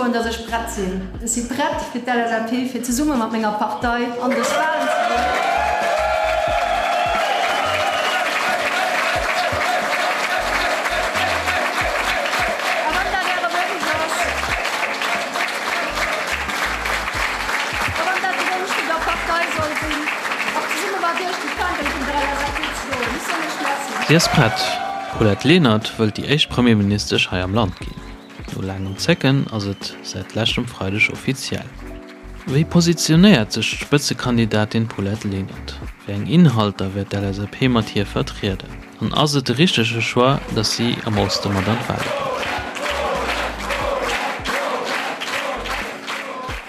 soen, dass ech prett sinn. Ech si prett fir d'LSAP, fir zesumme mat menger Partei an dës Wahlen ze goen. A wann dat Äre Wonsch ass, a wann dat de Wonsch vun der Partei soll sinn, och zesumme mat Iech déi Fändel vun der LSAP ze droen. Ech soen Iech Merci. Si ass prett. D'Paulette Lenert wëllt déi éischt Premierministesch hei am Land ginn. No laangem Zécken ass et säit leschtem Freideg offiziell. Wéi positionéiert sech d'Spëtzekandidatin Paulette Lenert? Wéi eng Inhalter wäert d'LSAP mat hir vertrieden? An ass et de richtege Choix, datt si am Oste mat an d'Wale geet?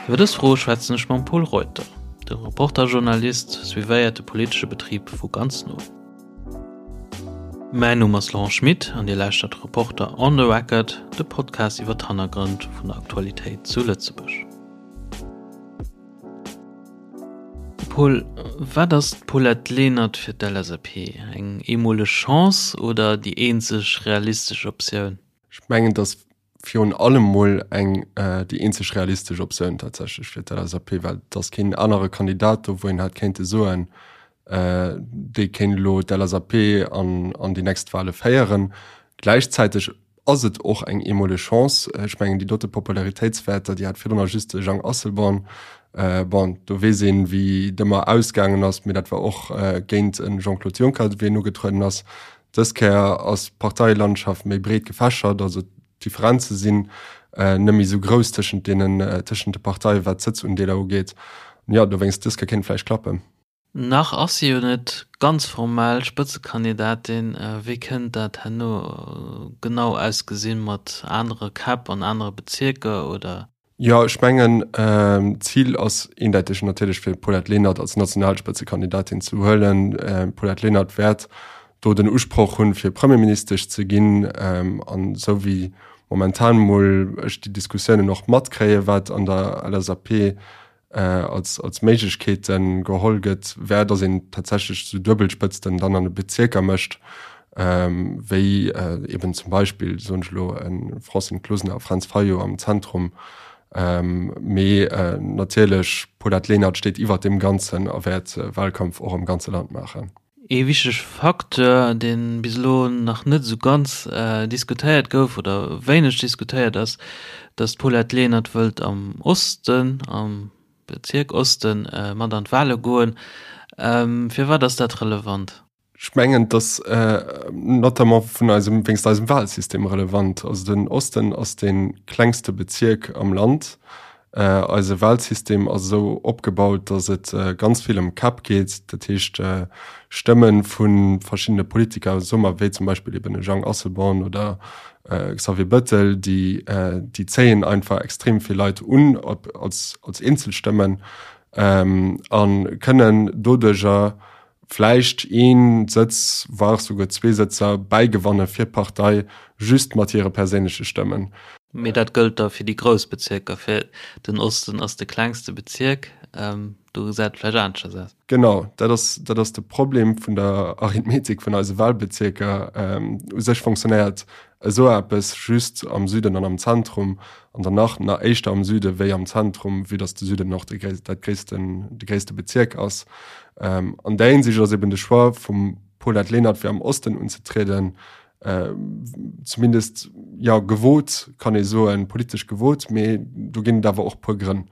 Iwwer dës Froe schwätzen ech mam Pol Reuter. De Reporter-Journalist suivéiert de politesche Betrib vu ganz no. Mäin Numm ass Laurent Schmit an Dir lauschtert Reporter on the Record, de Podcast iwwer d'Hannergrënn vun der Aktualitéit zu Lëtzebuerg. Paul, wat ass d'Paulette Lenert fir d'LSAP? Eng eemoleg Chance oder déi eenzeg realistesch Optioun? Ech mengen, dass virun allem mol eng déi eenzeg realistesch Optioun tatsächlech fir d'LSAP, well et ass keen anere Kandidat do, wou een hätt kéinte soen, dee kéint elo d'LSAP an an déi nächst Wahle féieren. Gläichzäiteg ass et och eng eemoleg Chance. Ech mengen déi dote Popularitéitswäerter, déi hat virdrun just de Jang Asselborn. Bon, do weess een, wéi et ëmmer ausgaangen ass, mee dat war och géint e Jean-Claude Juncker, wéi en ugetrueden ass. Dës Kéier ass d'Parteilandschaft méi breet gefächert, also d'Differenze sinn net méi esou grouss tëschent deenen, tëschent de Parteien, wat d'Sëtzundeeler ugeet. Jo, dowéinst, dës Kéier kéint et vläicht klappen. Nach ass si jo net ganz formell Spëtzekandidatin. Wéi kënnt dat herno genau ausgesinn, mat anere Käpp an anere Bezierker, oder? Jo, ech mengen, d'Zil ass eendeiteg natierlech fir d'Paulette Lenert als Nationalspëtzekandidatin ze huelen. D'Paulette Lenert wäert do den Usproch hunn, fir Premierministesch ze ginn. An esou wéi momentan emol ech déi Diskussiounen och matkréien, wat an der LSAP als, als Méiglechkeete geholl gëtt, wär, datt een tatsächlech esou Duebelspëtzten dann an de Bezierker mécht, wéi eben zum Beispill, soen ech elo, e Francine Closener a Fränz Fayot am Zentrum. Mee natierlech, Paulette Lenert steet iwwert deem Ganzen a wäert Wahlkampf och am ganze Land maachen. Ee wichtege Facteur, dee bis elo nach net esou ganz diskutéiert gouf oder wéineg diskutéiert ass, datt d'Paulette Lenert wëllt am Osten, am Bezierk Osten, mat an d'Wale goen. Firwat ass dat relevant? Ech mengen, et ass notamment vun eisem, wéinst eisem Wahlsystem relevant. Also den Osten ass dee klengste Bezierk am Land. Eise Wahlsystem ass esou opgebaut, datt et ganz vill ëm Käpp geet, dat heescht Stëmme vu verschiddene Politiker, soe mer wéi zum Beispill eben e Jean Asselborn oder Xavier Bëttel, déi déi zéien einfach extrem vill Leit un op als als Eenzelstëmmen a kënnen doduercher vläicht een Sëtz, voire souguer zwee Sëtzer bäigewanne fir d'Partei, just mat hire perséinleche Stëmmen. Mee dat gëllt da fir déi grouss Bezierker. Fir den Osten ass de klengste Bezierk, do gesäit et vläicht aneschters aus. Genau, dat ass, dat ass de Problem vun der Arithmetik vun eise Wahlbezierker. U sech fonctionnéiert esou eppes just am Süden an am Zentrum, an dann nach na éischter am Süde wéi am Zentrum, vue dass de Süden och de dat gréissten, de gréisste Bezierk ass. An där Hinsicht ass eben de Choix vum Paulette Lenert fir am Osten unzetrieden zumindest jo gewot, kann ee soen, politesch gewot, mee do ginn et awer och puer Grënn.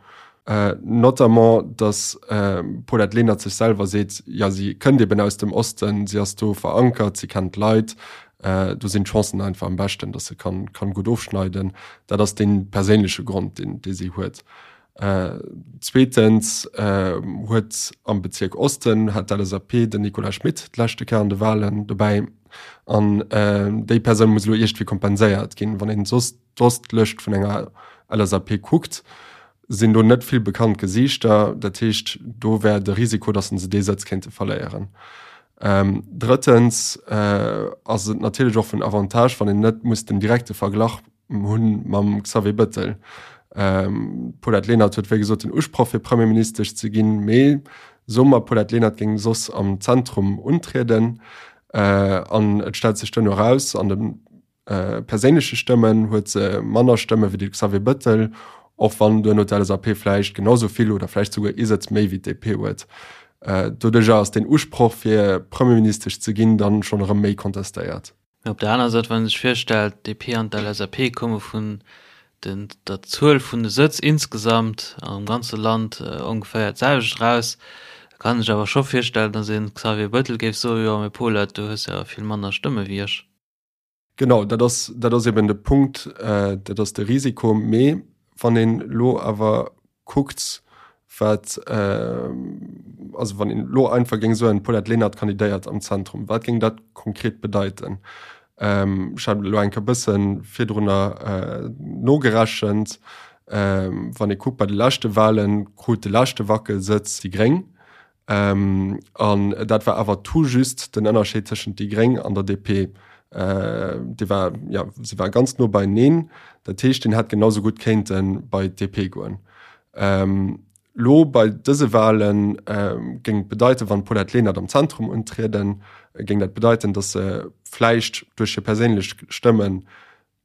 Notamment datt d'Paulette Lenert sech selwer seet, jo si kënnt eben aus dem Osten, si ass do verankert, si kennt d'Leit, do sinn d'Chancen einfach am beschten, datt se kann kann gutt ofschneiden. Dat ass dee perséinleche Grond, deen dee si huet. Zweetens huet am Bezierk Osten hat d'LSAP den Nicolas Schmit d'leschte Kéier an de Walen dobäi an déi Persoun muss elo iergendwéi kompenséiert ginn. Wann een soss d'Ostlëscht vun enger LSAP kuckt, sinn do net vill bekannt Gesiichter. Dat heescht, do wär de Risiko, datt se dee Sëtz kéinte verléieren. Drëttens ass et natierlech och vun Avantage, wann een net muss den direkte Verglach hunn mam Xavier Bëttel. D'Paulette Lenert huet wéi gesot den Usproch fir Premierministesch ze ginn, mee soe mer d'Paulette Lenert géing soss am Zentrum untrieden an et stellt sech duerno eraus an dem. perséinleche Stëmmen huet se manner Stëmme wéi de Xavier Bëttel, och wann duerno d'LSAP vläicht genau sou vill oder vläicht souguer ee Sëtz méi wéi d'DP huet. Doduercher ass deen Usproch fir Premierministesch ze ginn dann schonn erëm méi kontestéiert. Mee op der aner Säit, wann ee sech virstellt, d'DP an d'LSAP komme vun den der Zuel vun de Sëtz insgesamt am ganze Land ongeféier d'selwecht eraus, da kann ee sech awer scho virstellen, datt ee Xavier Bettel géif soen, jo mee Paulette, du hues jo awer vill manner Stëmme wéi ech. Genau, dat ass, dat ass eben de Punkt, dat ass de Risiko. Mee wann een elo awer kuckt, wat, also wann een elo einfach géing soen, d'Paulette Lenert kandidéiert am Zentrum, wat géing dat konkret bedeiten? Ech hat elo eng Kéier e bësse virdrunner nogerechent. Wann ee kuckt, bei de leschte Wahlen krut de leschte Wackelsëtz déi Gréng. An dat war awer tout juste den Ënnerscheed tëschent déi Gréng an der DP. Dee war, jo, se war ganz no beieneen. Dat heescht, deen hätt genau sou gutt kéinte bei d'DP goen. Lo bei dëse Wahle géing et bedeiten, wann d'Paulette Lenert am Zentrum untrieden, géing dat bedeiten, datt se vläicht duerch hir perséinlech Stëmmen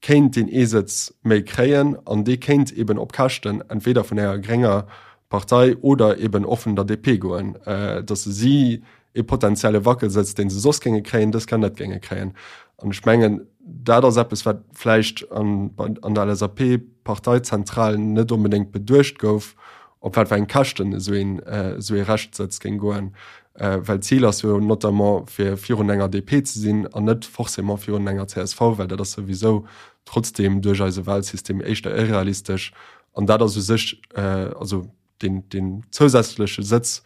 kéint deen ee Sëtz méi kréien an dee kéint eben op Käschten entweder vun enger grénger Partei oder eben och vun der DP goen, datt se si ee potenzielle Wackelsëtz, dee se soss géinge kréien, dës Kéier net géinge kréien. An ech mengen, dat ass eppes, wat vläicht an der LSAP-Parteizentral net onbedéngt beduecht gouf, op wat fir eng Käschten esou een esou ee Reschtsëtz géing goen, well d'Zil ass jo notamment fir virun enger DP ze sinn an net forcément virun enger csv, well dat ass souwisou trotzdeem duerch eise Wahlsystem éischter irrealistesch an dat ass u sech also deen deen zousätzleche Sëtz,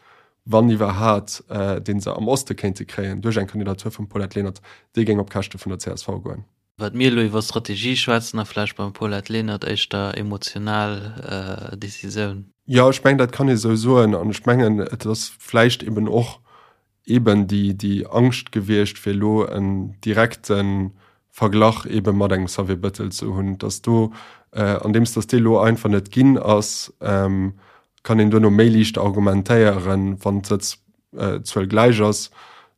wann iwwerhat, dee se am Oste kéinte kréien duerch eng Kandidatur vum Paulette Lenert, dee géing op Käschte vun der csv goen. Wat mir elo iwwer Strategie schwätzen a vläicht beim Paulette Lenert éischter emotional Decisioun. Jo, ech mengen, dat kann ee sou soen. An ech mengen, et ass vläicht eben och eben déi, déi Angscht gewiescht, fir elo en direkte Verglach ebe mat engem Xavier Bettel ze hunn, dass do, andeems dass dee elo einfach net ginn ass, kann een duerno méi liicht argumentéieren, wann d'Sëtz Zuel gläich ass,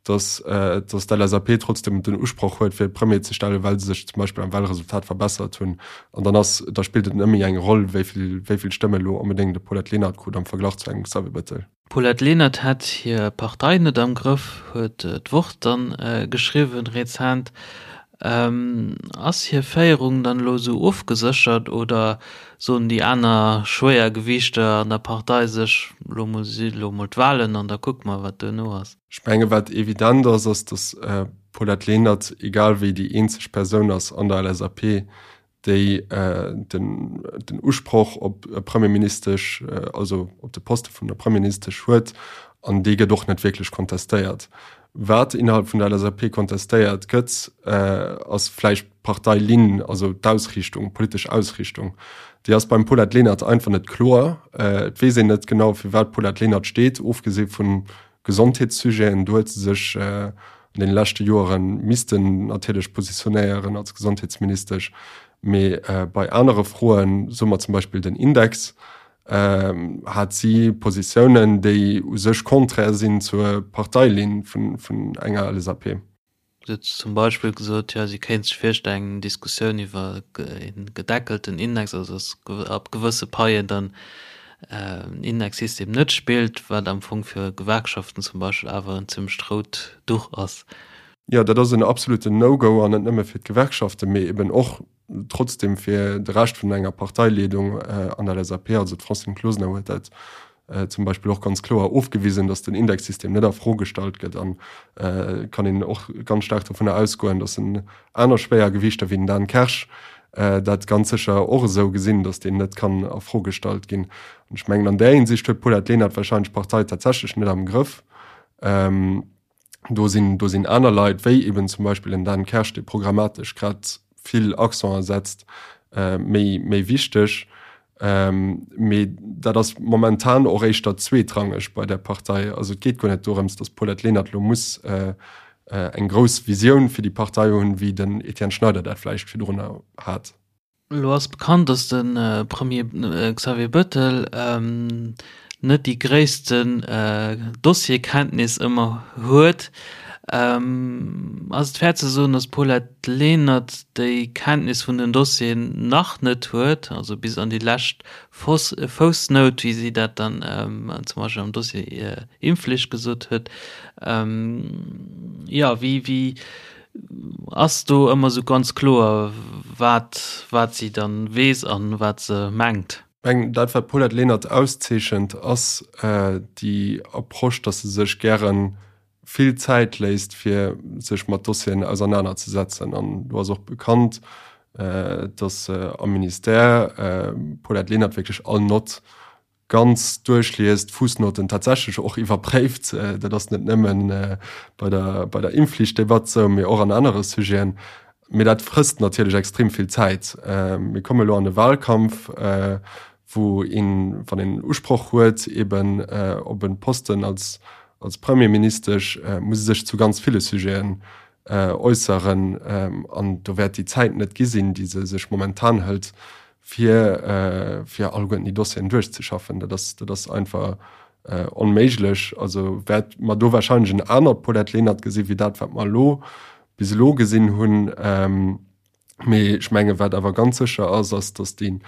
dass dass d'LSAP trotzdem den Usproch huet fir Premier ze stellen, well se sech zum Beispill am Wahlresultat verbessert hunn. An dann ass, da spillt et net méi eng Roll, wéi vill wéi vill Stëmme elo onbedéngt de Paulette Lenert krut am Verglach zu engem Xavier Bettel. D'Paulette Lenert hätt hir Partei net am Grëff, huet d'Wort dann geschriwwen rezent. Ass hir Féierung dann elo esou ofgeséchert oder soen déi aner Schwéiergewiichter an der Partei sech, elo mol si elo mol d'Wahlen an da kucke mer wat duerno ass? Ech menge wat evident ass, ass datt d'Paulette Lenert egal wéi déi eenzeg Persoun ass an der LSAP, déi den den Usproch op Premierministesch, also op de Poste vun der Premierministesch huet, an dee gëtt och net wierklech kontestéiert. Wat innerhalb vun der LSAP kontestéiert gëtt, ass vläicht d'Parteilinn, also d'Ausriichtung, d'politesch Ausriichtung. Déi ass beim Paulette Lenert einfach net kloer. Et weess een net genau, fir wat d'Paulette Lenert steet, ofgesi vu Gesondheetssujeten. Do huet se sech an deene leschte Joere missten natierlech positionéieren als Gesondheetsministesch. Mee bei anere Froen, soe mer zum Beispill den Index, hat si Positiounen, déi u sech konträr sinn zur Parteilinn vun enger LSAP. Si huet zum Beispill gesot, jo, si kéint sech virstellen, eng Diskussioun iwwer e gedeckelten Index, also datt ab gewësse Paien dann en Indexsystem net spillt, wat am Fong fir Gewerkschaften zum Beispill awer en zimmlecht rout Duch ass. Jo, dat ass en absoluten No-Go, an net nëmme fir d'Gewerkschaften, mee eben och trotzdem fir de Rescht vun enger Parteileedung an der LSAP, also d'Francine Closener huet dat zum Beispill och ganz kloer ofgewisen, datt den Indexsystem net a Fro gestallt gëtt an kann een och ganz staark dovunner ausgoen, datt en aner Schwéiergewiichter wéi den Dan Kersch dat ganz sécher och esou gesinn, datt deen net kann a Fro gestallt ginn. An ech mengen an där Hinsicht huet d'Paulette Lenert wahrscheinlech d'Partei tatsächlech net am Grëff. Do sinn, do sinn aner Leit, wéi eben zum Beispill en Dan Kersch, dee programmatesch grad vill Accenter setzt, méi, méi wichteg. Mee dat ass momentan och éischter zweetrangeg bei där Partei. Also et geet guer net dorëms, datt d'Paulette Lenert elo muss eng grouss Visioun fir déi Partei hunn, wéi den Etienne Schneider dat vläicht virdrunner hat. Elo ass bekannt, datt de Premier Xavier Bettel net déi gréissten Dossierkenntnis ëmmer huet. Ass et fair ze soen, datt d'Paulette Lenert déi Kenntnis vun den Dossieren nach net huet, also bis an déi lescht Foussnout, wéi si dat dann zum Beispill am Dossier Impfflicht gesot huet? Jo, wéi, wéi ass do ëmmer esou ganz kloer, wat, wat si dann weess an wat se mengt? Ech mengen, dat wat d'Paulette Lenert auszeechent, ass déi Approche, datt se sech gäre vill Zäit léisst, fir sech mat Dossieren ausernanerzesetzen. An do ass och bekannt, datt am Ministère d'Paulette Lenert wierklech all Nott ganz duerchliest, d'Fuussnoten tatsächlech och iwwerpréift. Dat ass net nëmme bei der, bei der Impfflichtdebatt esou, mee och an anere Sujeten. Mee dat frësst natierlech extrem vill Zäit. Mir komme elo an e Wahlkampf, wou een, wann een Usproch huet eben op e Posten als, als Premierministesch, muss e sech zu ganz ville Sujeten äusseren. An do wäert déi Zäit net gi sinn, déi se sech momentan hëlt, fir, fir alleguerten déi Dossieren duerchzeschaffen. Dat ass, dat ass einfach onméiglech. Also wäert mer do wahrscheinlech en anert Paulette Lenert gesi wéi dat, wat mer elo bis elo gesinn hunn. Mee ech menge wat awer ganz sécher ass, ass datt déi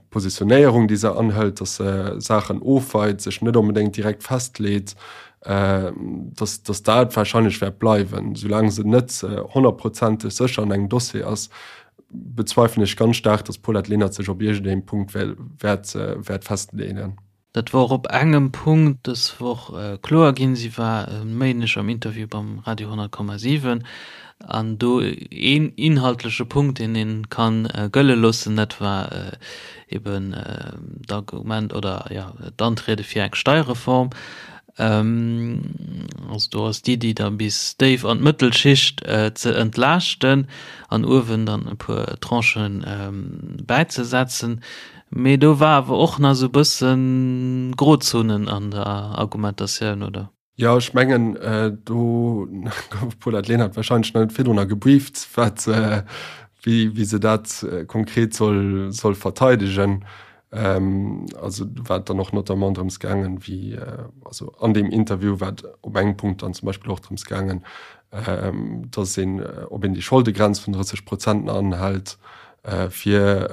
Positionéierung, déi se anhëlt, datt se Saachen ofweit, sech net onbedéngt direkt festleet, datt datt dat wahrscheinlech wäert bleiwen. Soulaang se net honnertprozenteg sécher an engem Dossier ass, bezweifelen ech ganz staark, datt d'Paulette Lenert sech op iergendengem Punkt wäert wäert festleeën. Dat wor op engem Punkt dës Woch kloer ginn. Si war e Méindeg am Interview beim Radio 100,7 an do een inhaltleche Punkt, deen ee ka gëlle loossen, dat war eben d'Argument oder jo d'Antriede fir eng Steierreform. Also do ass d'Iddi da bis déif an d'Mëttelschicht ze entlaaschten an uewen dann e puer Tranchen bäizesetzen. Mee do war awer och nach esou e bëssen Grozonen an der Argumentatioun, oder? Jo, ech mengen, do gouf d'Paulette Lenert wahrscheinlech nach net virdrunner gebrieft, wat, wéi, wéi se dat konkret soll, soll verteidegen. Also do war et dann och notamment drëms gaangen, wéi, also an deem Interview war et op engem Punkt dann zum Beispill och drëms gaangen, dass een, ob een déi Scholdegrenz vun 30 Prozent nach anhält, fir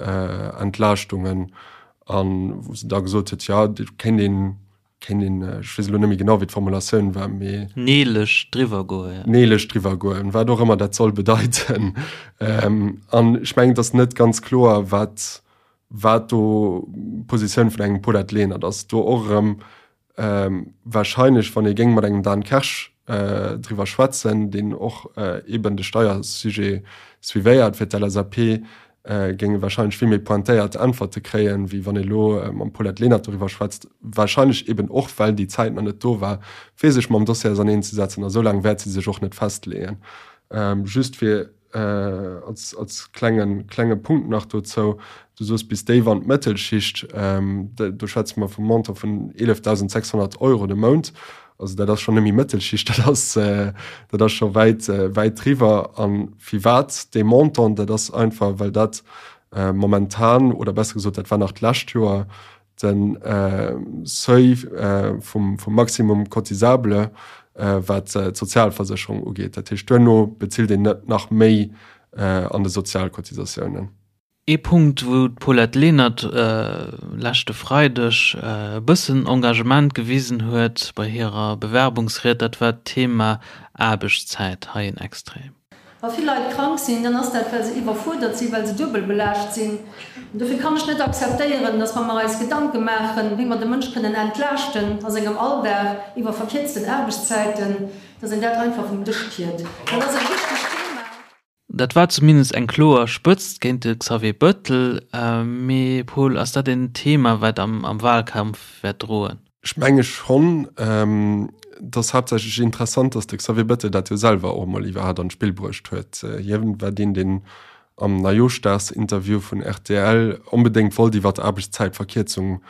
Entlaaschtungen an wou se da gesot huet, jo do kéint een, kéint een, ech weess elo net méi genau wéi d'Formulatioun war, mee. Neelech driwwer goen, jo. Neelech driwwer goen, wat och ëmmer dat soll bedeiten. An ech mengen, et ass net ganz kloer, wat, wat do d'Positioun vun engem Paulette Lenert ass. Do och erëm Wahrscheinlech, wann ee géing mat engem Dan Kersch driwwer schwätzen, deen och eeben de Steiersujet suivéiert fir d'LSAP, géing e wahrscheinlech vill méi pointéiert Äntwerte kréien, wéi wann ee elo mam Paulette Lenert doriwwer schwätzt. Wahrscheinlech eeben och, well déi Zäit nach net do war, fir sech mam Dossier auserneenzesetzen. A sou laang wäert si sech och net festleeën. Just fir Als, als klengen, klenge Punkt nach dozou, Du soos bis déif an d'Mëttelschicht, do schwätze mer vum Montant vun 11.600 Euro de Mount. Also dat ass schonn net méi Mëttelschicht, dat ass, dat ass scho wäit, wäit driwwer. A firwat dee Montant? Dat ass einfach, well dat momentan, oder besser gesot, dat war nach d'lescht Joer, de Seuil vum Maximum cotisable, wat d'Sozialversécherung ugeet. Dat heescht, duerno bezilt een net nach méi an de Sozialcotisatiounen. Ee Punkt, wou d'Paulette Lenert leschte Freideg e bëssen Engagement gewisen huet bei hirer Bewerbungsried, dat war d'Thema Aarbechtszäit. Hei en Extrait. Wa vill Leit krank sinn, dann ass dat, well se iwwerfuerdert sinn, well se duebel belaascht sinn. An dofir kann ech net akzeptéieren, dass, wa mer eis Gedanke maachen, wéi mer de Mënsch kënnen entlaaschten a sengem Alldag iwwer verkierzten Aarbechtszäiten, dass een dat einfach vum Dësch kiert. Dat ass e wichtegt Thema. Dat war zumindest eng kloer Spëtzt géint de Xavier Bettel. Mee Paul, ass dat en Thema, wat am Wahlkampf wäert droen? Ech menge schonn. Et ass haaptsächlech interessant, datt de Xavier Bettel dat jo selwer och emol iwwerhaapt an d'Spill bruecht huet. Hien war deen, deen am Neijooschdagsinterview vun rtl onbedéngt wollt iwwer d'Aarbechtszäitverkierzung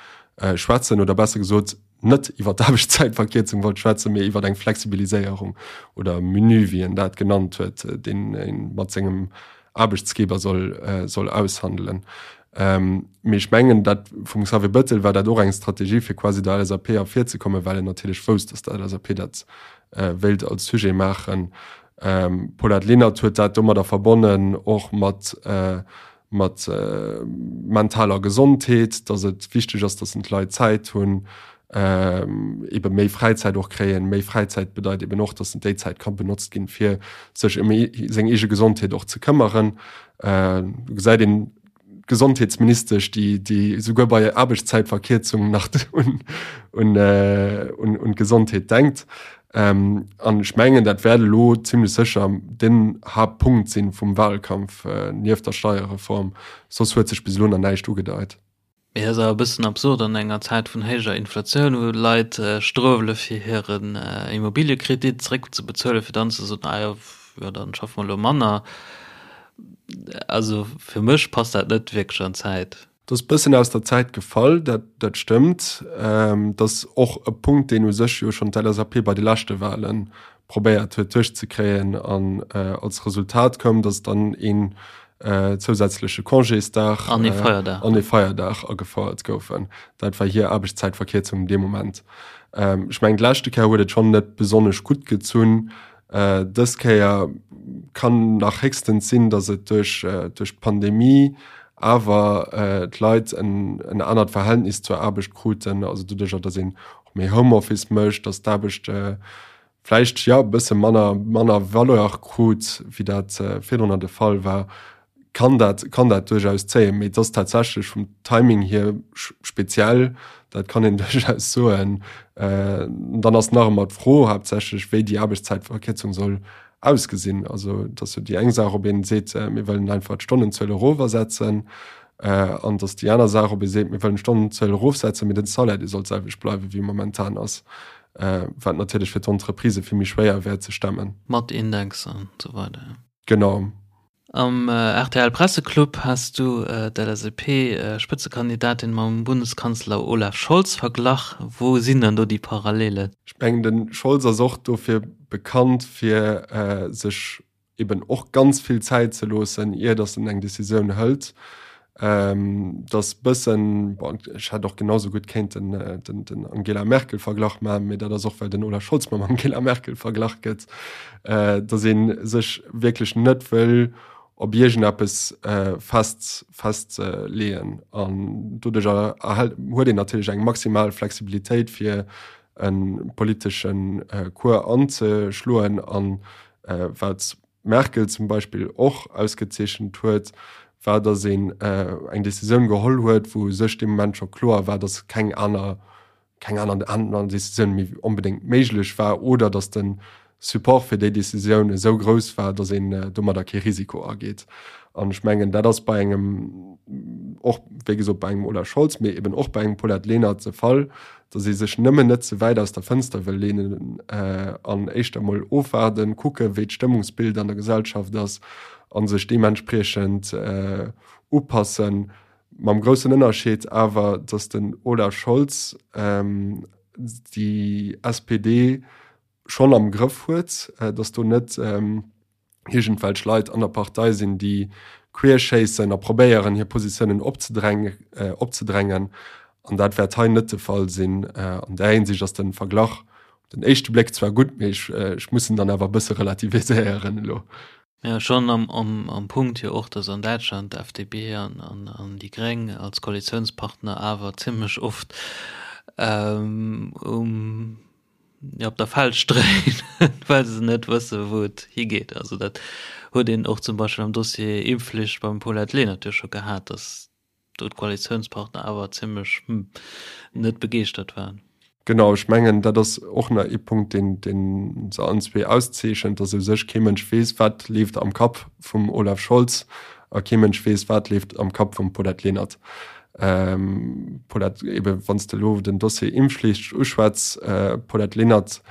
schwätzen, oder besser gesot, net iwwer d'Aarbechtszäitverkierzung wollt schwätzen, mee iwwer eng Flexibiliséierung oder Menu, wéi en dat genannt huet, deen ee mat sengem Aarbechtsgeber soll, soll aushandelen. Mee ech mengen, dat vum Xavier Bettel war dat och eng Strategie, fir quasi der LSAP ervirzekommen, well en natierlech wousst, datt der LSAP dat. wéilt als Sujet maachen. D'Paulette Lenert huet dat domadder verbonnen och mat mat mentaler Gesondheet, datt et wichteg ass, datt d'Leit Zäit hunn, ebe méi Fräizäit och kréien. Méi Fräizäit bedeit eben och, datt déi Zäit ka benotzt ginn, fir sech ëm seng eege Gesondheet och ze këmmeren. Do gesäit een d'Gesondheetsministesch, déi déi esouguer bei Aarbechtszäitverkierzung nach un un un d'Gesondheet denkt. An ech mengen, dat wäert elo zimlech sécher den Haaptpunkt sinn vum Wahlkampf, nieft der Steierreform. Soss huet sech bis elo nach näischt ugedeit. Mee dat ass awer e bëssen absurd an enger Zäit vun héijer Inflatioun, wou Leit struewele fir hiren Immobiliëkredit zeréckzebezuelen, fir dann ze soen, ah jo, jo dann schaffe mer elo manner. Also fir mech passt dat net wierklech an d'Zäit. Dat ass e bëssen aus der Zäit gefall, dat dat stëmmt. Dat ass och e Punkt, deen u sech jo schonn d'LSAP bei de leschte Wale probéiert huet duerchzekréien an als Resultat koum, datt dann een zousätzleche Congésdag an ee Feierdag an ee Feierdag agefouert goufen. Dat war hir Aarbechtszäitverkierzung dee Moment. Ech mengen d'leschte Kéier huet et schonn net besonnesch gutt gezunn. Dës Kéier kann nach héchstens sinn, datt et duerch duerch d'Pandemie awer d'Leit en en anert Verhältnis zur Aarbecht kruten, also doduercher, datt een och méi Homeoffice mécht, datt d'Aarbecht vläicht jo e bësse manner manner Valeur krut, wéi dat virdrunner de Fall war, kann dat kann dat duerchaus zéien. Mee et ass tatsächlech vum Timing hier speziell, dat kann een duerchaus soen. Dann ass nach ëmmer d'Fro haaptsächlech, wéi déi Aarbechtszäitverkierzung soll ausgesinn. Also et ass jo déi eng Saach, ob een seet, mir wëllen einfach d'Stonnenzuel erofersetzen, an et ass déi aner Saach, ob ee seet, mir wëllen d'Stonnenzuel erofsetzen, mee den Salaire, dee soll d'selwecht bleiwen, wéi e momentan ass. Wat natierlech fir d'Entreprisë vill méi schwéier wär ze stemmen. Mat Index an esou weider. Genau. Am rtl Presseclub has du d'LSAP-Spëtzekandidatin mam Bundeskanzler Olaf Scholz verglach. Wou sinn dann do déi Parallelen? Ech mengen, de Scholz ass och dofir bekannt, fir sech eben och ganz vill Zäit ze loossen, ier datt en eng Decisioun hëlt. Datt bëssen, bon, ech hätt och genau sou gutt kéinten den, den Angela Merkel-Verglach maachen, mee dat ass och, well den Olaf Scholz mam Angela Merkel verglach gëtt, datt ee sech wierklech net wëll op iergendeppes fest, festleeën. An doduerch erhält, huet een natierlech eng maximal Flexibilitéit, fir e politesche Cours anzeschloen. An wat d'Merkel zum Beispill och ausgezeechent huet, war, datt een eng Decisioun geholl huet, wou u sech dee Moment scho kloer war, datt keng aner, keng aner aner Decisioun méi onbedéngt méiglech war oder datt de Support fir déi Decisioun esou grouss war, datt een domadder kee Risiko ageet. An ech mengen, dat ass bei engem, och wéi gesot bei engem Olaf Scholz, mee eben och bei engem Paulette Lenert de Fall, datt ee sech nëmmen net ze wäit aus der Fënster wëll leenen an éischter emol ofwaarden, kucken, wéi d'Stëmmungsbild an der Gesellschaft ass a sech deementspriechend upassen. Mam groussen Ënnerscheed awer, datt den Olaf Scholz déi SPD schonn am Grëff huet, datt do net iergendwelch Leit an der Partei sinn, déi queerschéissen a probéieren, hir Positiounen opzedrängen. An dat wäert hei net de Fall sinn. An där Hinsicht ass de Verglach op den éischte Bléck zwar gutt, mee ech muss en dann awer e bësse relativiséieren elo. Jo, schonn am Punkt jo och, datt an Däitschland d'FDP an déi Gréng als Koalitiounspartner awer zimmlech oft um op der Felsch dréinen, well se net wësse wou et higeet. Also dat huet een och zum Beispill am Dossier Impfflicht beim Paulette Lenert jo scho gehat, datt do d'Koalitiounspartner awer zimmlech net begeeschtert waren. Genau, ech mengen, dat ass och nach ee Punkt, deen, dee se allen zwee auszeechent, datt u sech kee Mënsch weess, wat leeft am Kapp vum Olaf Scholz a kee Mënsch weess, wat leeft am Kapp vum Paulette Lenert. Paulette, ebe wann s de elo den Dossier Impfflicht uschwätz, Paulette Lenert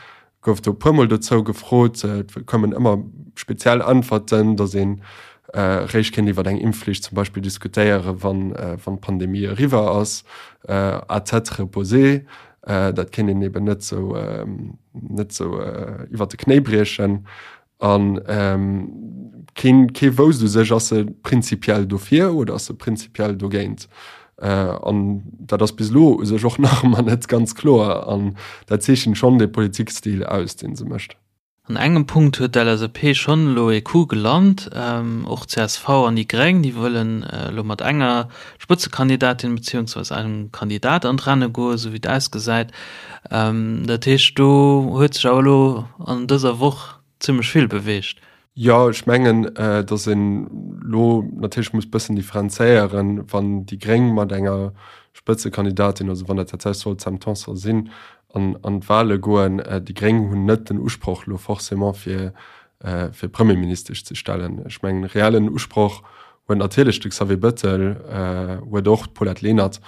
gouf do e puermol dozou gefrot. Et koumen ëmmer speziell Äntwerten, datt een réischt kéint iwwer eng Impfflicht zum Beispill diskutéieren, wann wann d'Pandemie eriwwer ass, à tête reposée. Dat kéint een eben net esou net esou iwwer de Knéi briechen. An keen, kee wousst u sech, ass se prinzipiell dofir oder ass se prinzipiell dogéint. An dat ass bis elo u sech och nach ëmmer net ganz kloer. An dat zeechent schonn dee Politikstil aus, dee se mécht. An engem Punkt huet d'LSAP schonn elo ee Coup gelant. Och csv an déi Gréng, déi wëllen elo mat enger Spëtzekandidatin beziehungsweise engem Kandidat an d'Renne goen, esou wéi et ausgesäit. Dat heescht, do huet sech awer elo an dëser Woch zimmlech vill beweegt. Jo, ech mengen, datt een elo natierlech muss bëssen differenzéieren, wann déi Gréng mat enger Spëtzekandidatin, also wann dat tatsächlech soll d'Sam Tanson sinn, an an d'Wahle goen. Déi Gréng hunn net den Usproch elo forcément fir fir Premierministesch ze stellen. Ech mengen, reellen Usproch huet natierlech de Xavier Bëttel, huet och d'Paulette Lenert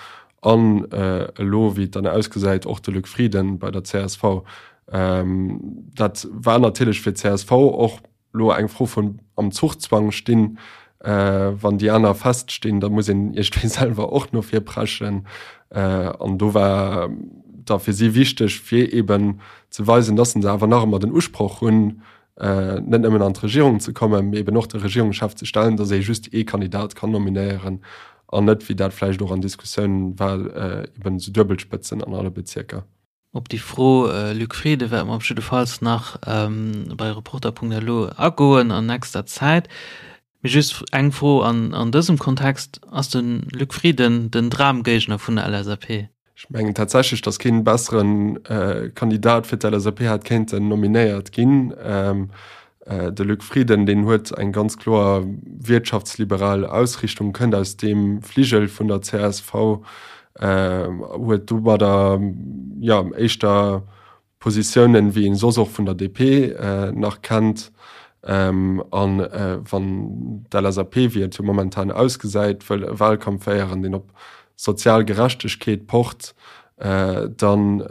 an elo, wéi et dann ausgesäit, och de Luc Frieden bei der csv. Dat war natierlech fir d'CSV och elo eng Fro vun am Zuchzwang stinn. Wann déi aner feststinn, da muss een iergendwéi selwer och no vir preschen. An do war da fir si wichteg, fir eeben ze weisen, datt se awer nach ëmmer den Usproch hunn, net nëmmen an d'Regierung ze kommen, mee eben och de Regierungschef ze stellen, datt ee just ee Kandidat kann nominéieren an net, wéi dat vläicht och an Diskussiounen war, eben esou Duebelspëtzen an alle Bezierker. Op déi Fro, Luc Frieden, wäerte mer op jiddefalls nach bei Reporter.lu agoen an nächster Zäit. Mee just eng Fro an dësem Kontext, Ass de Luc Frieden den Dramgéigner vun der LSAP? Ech mengen tatsächlech, datt keen bessere Kandidat fir d'LSAP hätt kéinten nominéiert ginn. De Luc Frieden, deen huet eng ganz kloer wirtschaftsliberal Ausrichtung, kënnt aus deem Fligel vun der csv, huet domadder, jo, éischter Positiounen, wéi een soss och vun der DP nach kennt. A wann d'LSAP, wéi et jo momentan ausgesäit, wëll e Wahlkampf féieren, deen op sozial Gerechtegkeet pocht, dann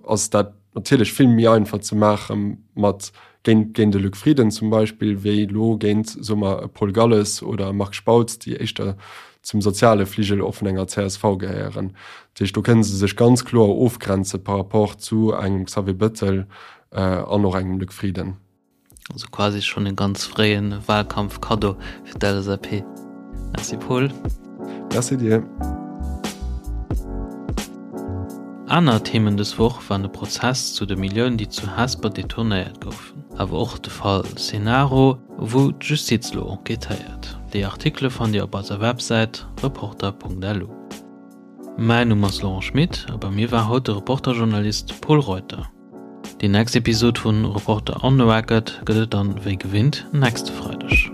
ass dat natierlech vill méi einfach ze maache mat géint géint e Luc Frieden zum Beispill, wéi elo géint, soe mer, e Paul Galles oder e Marc Spautz, déi éischter zum soziale Fligel och vun enger csv gehéieren. Dat heescht, do kënne se sech ganz kloer ofgrenze par rapport zu engem Xavier Bëttel an och engem Luc Frieden. Also quasi schonn e ganz fréie Wahlkampf-Kaddo fir d'LSAP. Merci Paul. Merci dir. Aner Themen dës Woch waren de Prozess zu de Milliounen, déi zu Hesper detournéiert goufen, awer och de Fall Cenaro, wou d'Justiz elo enquêtéiert. Déi Artikele fannt Dir op eiser Websäit reporter.lu. Mäin Numm ass Laurent Schmit a bei mir war haut de Reporter-Journalist Pol Reuter. Déi nächst Episod vun Reporter on the Record gëtt et dann wéi gewinnt nächste Freideg.